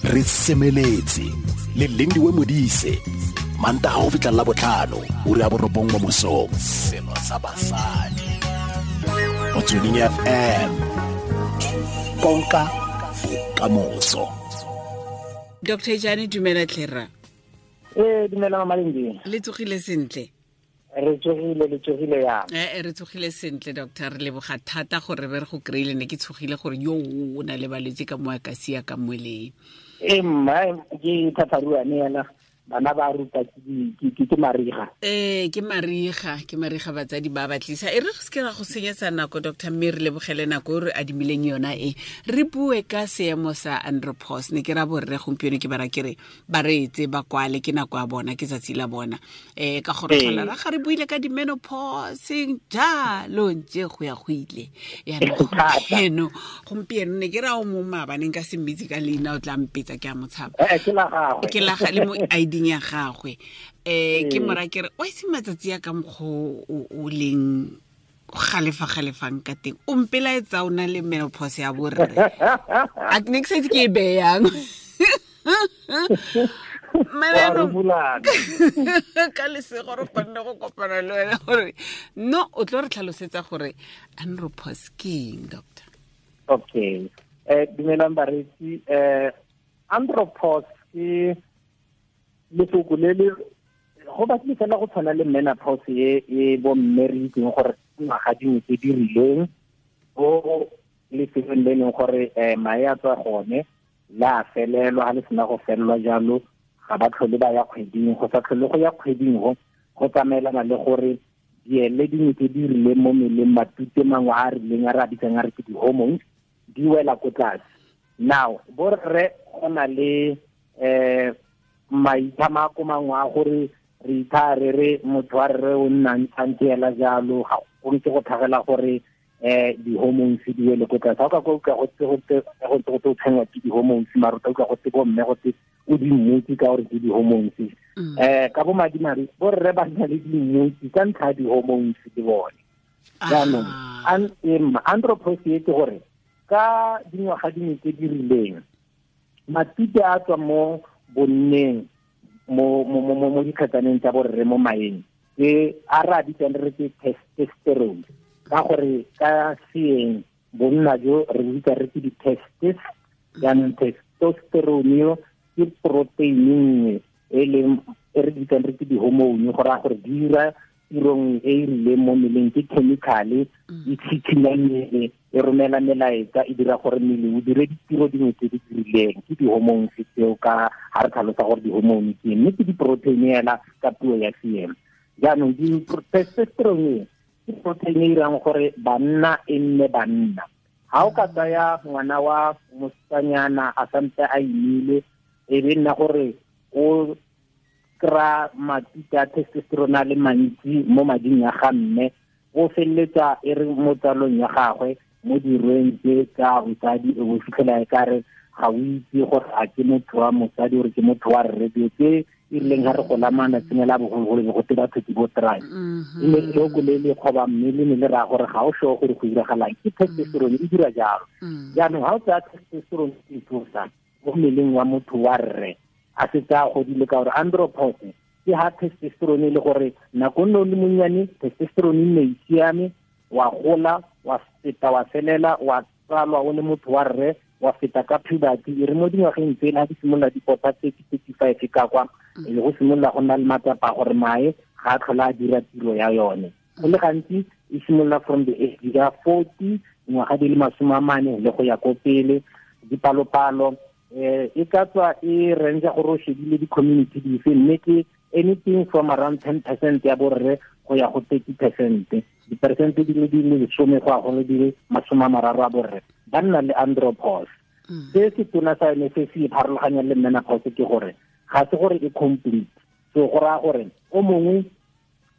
Re semeletse le Lindiwe Modise, Mantaga go fitlha la botlhano, ura ya 9 mo mosong. Selo sa basadi Motsweding FM, konka bokamoso. Dr. Jane, dumela tlhera. Ee, dumela Mama Lindi. Le tsogile sentle? Re tsogile, le tsogile yang? Ee, re tsogile sentle doctor, re leboga thata gore re go kry-ile. Ne ke tshogile gore yo o na le balwetse ka mo a ka sia ka moeleng. Ee mma, ke thatharuane yana, bana ba ruta ke mariga. Ee, ke mariga, ke mariga, batsadi ba batlisa. E re re seke ra go senyetsa nako doctor, mme re lebogele nako e re adimileng yona e. Re bue ka seemo sa andropause. Ne ke ra borre gompieno ke bara ke re ba reetse, ba kwale, ke nako ya bona, ke tsatsi la bona. Ka gore tlhola ra ga re buile ka di-menopause jalo ntse go ya go ile. Yaanong gompieno ne ke ra o mongwe maabane nka se mmitse ka leina, o tla mpetsa ke a mo tshaba. Ke la gagwe. Ke la ga le mo ID ya gagwe. Ke mora ke re o itse matsatsi a ka mokgwa o leng galefa galefang ka teng, o mpelaetsa o na le menopause ya borre. A ne ke sa itse ke e beyang. Ka lesego re kgonne go kopana le wena gore no o tlo re tlhalosetsa gore andropause ke eng, doctor. Okay. Dumelang bareetsi. Andropause ke lefoko le le go batlile fela go tshwana le menopause e bo mme re itseng gore ngwaga dingwe tse di rileng bo lefelong le leng gore mae a tswa gone la felelwa, ga le sena go felelwa jalo ga ba tlhole ba ya kgweding. Go sa tlhole go ya kgweding go tsamaelana le gore diele dingwe tse di rileng mo mmeleng, matute mangwe a a rileng a re a bitsang a re ke di-hormones, di wela ko tlase. Now borre go na le maitlhamako mangwe a gore re itha re re motho wa rre o nna ntshantse ela jalo, ga go ntse go tlhagela gore di-hormones di wele ko tlase. Ga o ka kwa utlwa go tse go tse go tse go tse o tshwenngwa ke di-hormones, mara o tla utlwa go tse bo mme go tse o di mmotse ka gore ke di-hormones. Ka bo madimadi borre ba nna le dimmotse ka ntlha ya di-hormones le bone. Jaanong andropause e ke gore ka dingwaga dingwe tse di rileng matute a tswa mo bonneng mo dikgetsaneng tsa borre mo maeng ke a re a bitsang re ke testosterone, ka gore ka seeng bonna jo re bitsa re ke di-testis. Jaanong testosterone yo ke protein nngwe e leng e re bitsang re ke di-hormone, go raya gore di dira tiro nngwe e e rileng mo mmeleng, ke chemical-e e tshikhinya mmele, e romela melaetsa, e dira gore mmele o dire ditiro dingwe tse di rileng. Ke di-hormones tseo ka ga re tlhalosa gore di-hormone ke eng, mme ke di-protein fela ka puo ya seeng. Jaanong testosterone ke protein e irang gore banna e nne banna. Ha o ka tsaya ngwana wa mosetsanyana a santse a imile, e be nna gore o kry-a matute a testosterone a le mantsi mo mading a ga mme, o feleletsa e re mo tsalong ya gagwe mo dirweng tse tsa bosadi, o bo fitlhela e kare ga o itse gore a ke motho wa mosadi gore ke motho wa rre. Dilo tse e rileng ga re gola malatsing a la bogologolo be go te batho ke bo try. E ne loko le le kgoba mme le ne le raya gore ga o sure gore go diragalang, ke testosterone e dira jalo. Jaanong ga o tsaya testosterone e tlosa mo mmeleng wa motho wa rre a setse a godile, ka gore andropause ke ha testosterone e le gore nako nne o le monnyane testosterone e nne e siame, wa gola wa feta wa felela wa tsalwa o le motho wa rre, wa feta ka puberty, e re mo dingwageng tsele ha di simolola di pota 30, 35 ka kwa, e le go simolola go nna le matsapa a gore mae ga a tlhola a dira tiro ya yone. Go le gantsi e simolola from the age ya 40, dingwaga di le 40 le go ya ko pele. Dipalopalo e ka tswa e range gore o shebile di-community dife, mme ke anything from around 10% ya borre go ya go 30%. Diperesente di le di le 10 go ya go di le 30 a borre ba nna le andropause. Se se tona sa yone se se pharologanyang le menopause ke gore ga se gore e complete. So go raya gore o mongwe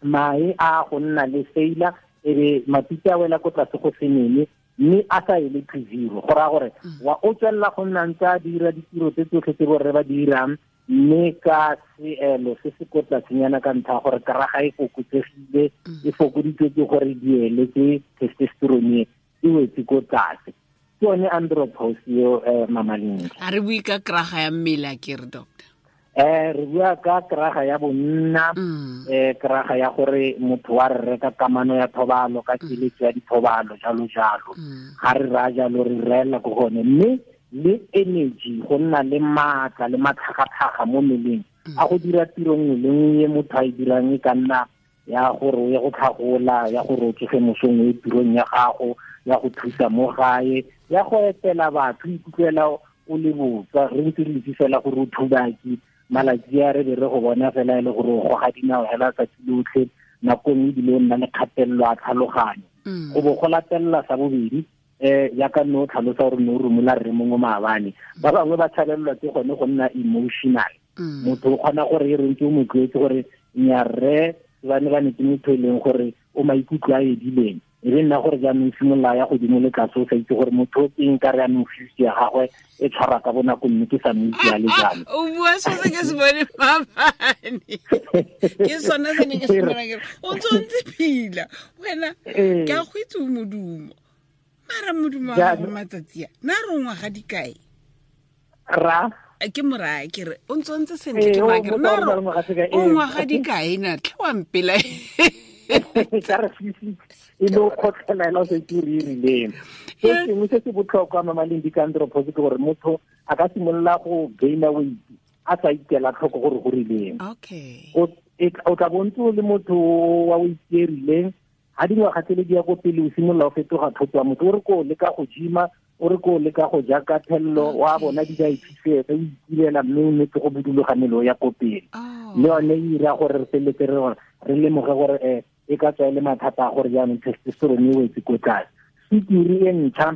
mae a go nna le failure, e be matute a wela ko tlase go se nene, mme a sa ele to zero. Go raya gore wa o tswelela go nna ntse a dira ditiro tse tsotlhe tse borre ba di dirang, mme ka seelo se se ko tlasenyana ka ntlha ya gore karaga e fokotsegile, e fokoditswe ke gore diele tse testosterone e wetse ko tlase. Ke yone andropause eo, Mama Lindi. A re bue ka kraga ya mmele a ke re, doctor? Re bua ka kraga ya bonna, kraga ya gore motho wa re reka kamano ya thobalo ka keletso ya dithobalo, jalo jalo. Ga re raya jalo re reela ko gone, mme le energy, go nna le maatla le matlhagatlhaga mo mmeleng a go dira tiro nngwe le nngwe e motho a e dirang, e ka nna ya gore o ye go tlhagola, ya gore o tsoge mosong o ye tirong ya gago, ya go thusa mo gae, ya go etela batho, o ikutlwela o le botswa. Re ntse re itse fela gore o thubaki malatsi a re be re go bona fela e le gore o goga dinao hela tsatsi lotlhe, nako nngwe ebile o nna le kgatelelo a tlhaloganyo. Go bo go latelela sa bobedi, jaaka nne o tlhalosa gore ne o romola rre mongwe maabane, ba bangwe ba tshabelelwa ke gone go nna emotional. Motho o kgona gore e re ntse o mo tlwaetse gore nya rre ba ne ba ne ke motho e leng gore o maikutlo a edileng, e be nna gore jaanong simolola ya godimo le tlase, o sa itse gore motho o keng ka re jaanong fuse ya gagwe e tshwara ka bonako, mme ke sa mo itse a le jalo. O bua so se ke se bone maabane, ke sone se ne ke se bona, ke re o ntse o ntse phila wena, ke a go itse o modumo, mara modumo wa gago matsatsi a na re o ngwaga dikae? Ra? Ke moraya ke re o ntse o ntse sentle, ke moraya ke re na re o ngwaga dikae na tlhe wa mpela. Ka re fise e le o kgotlhela ela o sa itse gore e rileng. Se sengwe se se botlhokwa, Mama Lindi, ka andropause ke gore motho a ka simolola go gaina weight a sa ikela tlhoko gore go rileng. O tla bo ntse o le motho wa weight e rileng, ha dingwaga tsele di ya ko pele o simolola o fetoga thoto ya motho, o re ko leka go gym-a, o re ko leka go ja ka thello, wa bona di dietitian, o itirela mme o nnetse go buduloga mmele o ya ko pele. Le yone e ira gore re feleletse re gore re lemoge gore, e ka tswa e le mathata a gore jaanong testosterone e wetse ko tlase. Sukiri e ntšha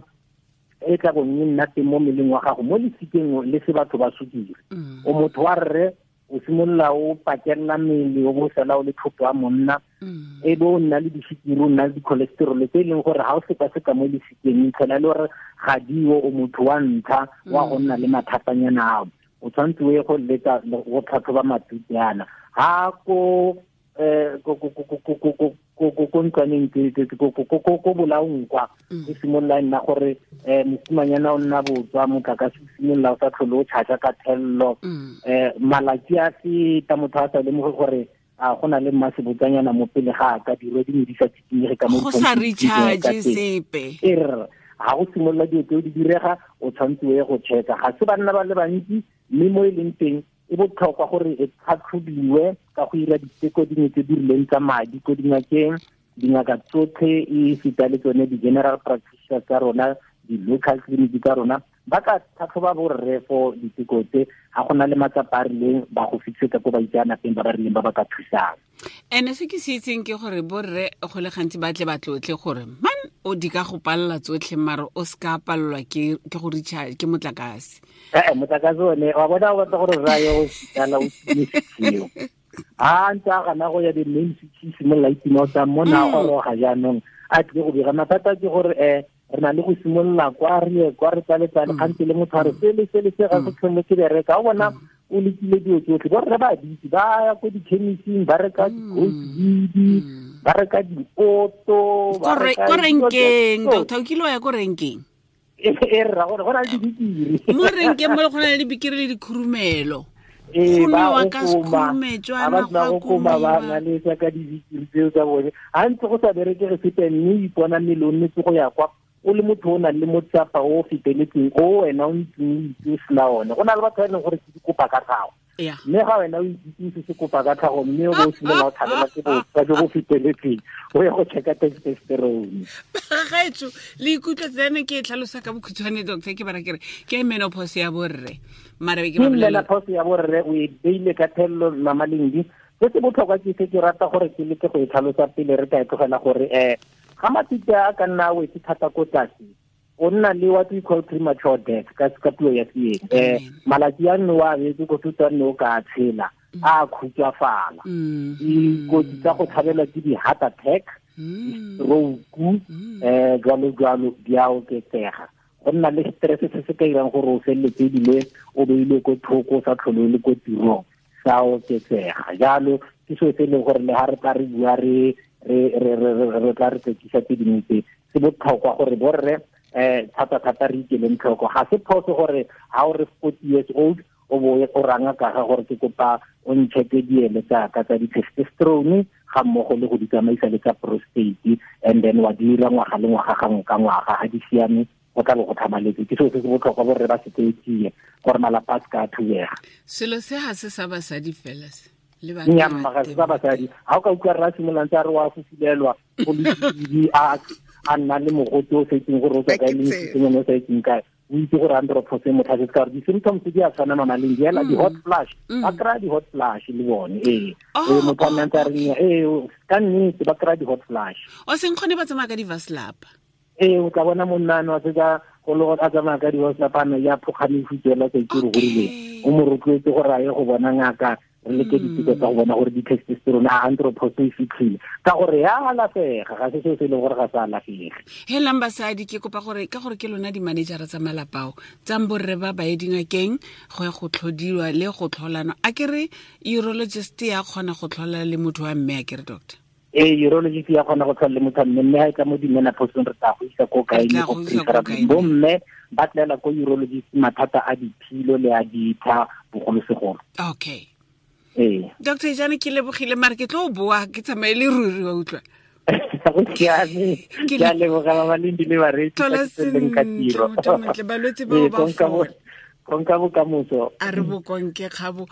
e tla bong e nna teng mo mmeleng wa gago, mo lesikeng le se batho ba sukiri. O motho wa rre, o simolola o pakella mmele, o bo sala o le thoto wa monna, e bo o nna le disukiri, o nna le di-cholesterol tse e leng gore ha o sekaseka mo lesikeng, itlhela e le gore ga dio, o motho wa ntlha wa go nna le mathatanyana ao. O tshwanetse o ye go leka go tlhatlhoba matute ana. Ha ko, ko, ko, ko, ko, ko, ko, ko, ko, ko, ko ntlwaneng tse, tse, tse, ko, ko, ko, ko, ko bolaong kwa, go simolola e nna gore, mosimanyana o nna botswa, motlakase o simolola o sa tlhole o charge ka thello. Malatsi a feta, motho a sa lemoge gore a go na le mmasebotsanyana mo pele ga a ka dirwe dingwe di sa tsikinyege ka mo Go sa ditshwantshong tse di recharge ka teng. sepe. E re, ha go simolola dilo tseo di direga, o tshwanetse o ye go check-a. Ga se banna ba le bantsi, mme mo e leng teng e botlhokwa gore e tlhatlhobiwe ka go ira diteko dingwe tse di rileng tsa madi ko dingakeng. Dingaka tsotlhe e feta le tsone di-general practitioners tsa rona, di-local clinic tsa rona, ba ka tlhatlhoba borre for diteko tse. Ga go na le matsapa a rileng, ba go fitlhetsa ko baitseanapeng ba ba rileng ba ba ka thusang. Ene se ke se itseng ke gore borre go le gantsi ba tle ba tlotle gore man o di ka go palela tsotlhe, mare o se ka palelwa ke go recharge ke motlakase. Motlakase one wa bona o batla gore rra yo o sala o time seo. Ha ntse a gana go ya di-main city, simolola e tima o tsa mona goroga jaanong a tlile go bega. Mathata ke gore, re na le go simolola kwa re ye kwa re tsale-tsale, kgantele le motho a re sele, sele, se ga se tlhole ke bereka. O bona o lekile dilo tsotlhe, borre ba ditse, ba ya ko di-chemist-ing, ba reka di-goat weed, ba reka di-oto, ba reka Ko dilo tse renkeng, tsotlhe. doctor, o kile wa ya ko renkeng? E rra, gore go na le dibikiri. Mo renkeng mo go na le dibikiri le dikhurumelo. Ee, Go ba nowa go ka koma. sekhurumetswana, Ha ba sena go go koma, ba komiwa. na le tsa ka dibikiri tseo tsa bone. Ha ntse go sa berekege sepe, mme o ipona mmele o nnetse go ya kwa, o le motho o nang le motsapa o o feteletseng, o wena o ntseng o itse o sena one. Go na le batho ba e leng gore ke dikopa ka tlhago. Mme ga wena o itse se se kopa ka tlhago, mme o bo o simolola o tshabela ke botswa jo bo feteletseng, o ye go check-a testosterone. Bagaetsho, le ikutlwa tsena ke e tlhalosa ka bokhutshwane, doctor, ke bara ke re ke menopause ya borre. Mara be ke ba Ke bolelela. menopause ya borre, o e beile ka thello, Mama Lindi. Se se botlhokwa ke se ke rata gore ke leke go e tlhalosa pele re ka e tlogela gore, ga matute a ka nna a wetse thata ko tlase, o nna le what we call premature death ka puo ya Seeng. Malatsi a nne wa beetse ko thutong nne o ka tshela, a khutswafala. Dikotsi tsa go tshabelwa ke di-heart attack, di-stroke, jwalo jwalo di a oketsega. Go nna le stress se se ka irang gore o feleletse ebile o beilwe ko thoko, o sa tlhole o le ko tirong, sa oketsega. Jalo ke seo se e leng gore le ha re tla re bua re tla re tsekisa tse dingwe tse, se botlhokwa gore borre Thata thata re ikeleng tlhoko. Ga se phoso gore ha o re 40 years old o bo o ranga ka ga gore ke kopa o ncheke diele tsa ka tsa di-testosterone ga mmogo le go di tsamaisa le tsa prostate, and then wa dira ngwaga le ngwaga gangwe ka ngwaga. Ga di siame go tla bo go tlhamaletse. Ke selo se se botlhokwa borre ba se tseetsie gore malapa a se ka a thubega. Selo se ga se sa basadi fela se Nnyamma, ga se sa basadi. Ga o ka utlwa rra simololang tsa re wa fufulelwa go le a nna le mogote o sa itseng gore o tswa kae le mositsengwane o sa itseng kae, o itse gore andropause motlhasetse, ka gore di-symptoms di a tshwana mamaleng di ela di-hot flash. Ba kry-a di-hot flash le bone, ee. Ee, motho a nna ntse a reng ee, ka nnete ba kry-a di-hot flash. O seng kgone ba tsamaya ka di-vaslapa. Ee, o tla bona monna ano a setsa go le a tsamaya ka di-vaslapa, a ya phokgane futsela sa itse gore go rileng. O mo rotloetse gore a ye go bona ngaka, re leke diteko tsa go bona gore di-testosterone a andropause e fitlhile, ka gore ya alafega, ga se seo se e leng gore ga se alafege. Helang basadi, ke kopa gore ka gore ke lona di-managera tsa malapao tsang borre ba ba ye dingakeng go ya go tlhodiwa le go tlholana. A ke re urologist ya kgona go tlhola le motho wa mme, a ke re doctor? Ee, urologist ya kgona go tlhola le motho wa mme, mme ha e tla mo di-menopauseng re tla go isa ko kae, Re tla go go isa ko preferably kae. Bomme ba tlela ko urologist mathata a diphilo le a ditha bogolosegolo. Okay. Ee. Doctor Jane, ke lebogile, mare ke tlo boa ke tsamaye le ruri, wa utlwa. Go siame. Ke Ke a leboga ba ba leng di le bareetsi Tlhola ka tsweleng ka sentle, tiro. motho o montle, balwetse bao Ee, ba fola. konka bokamoso. A re bokonke kgabo.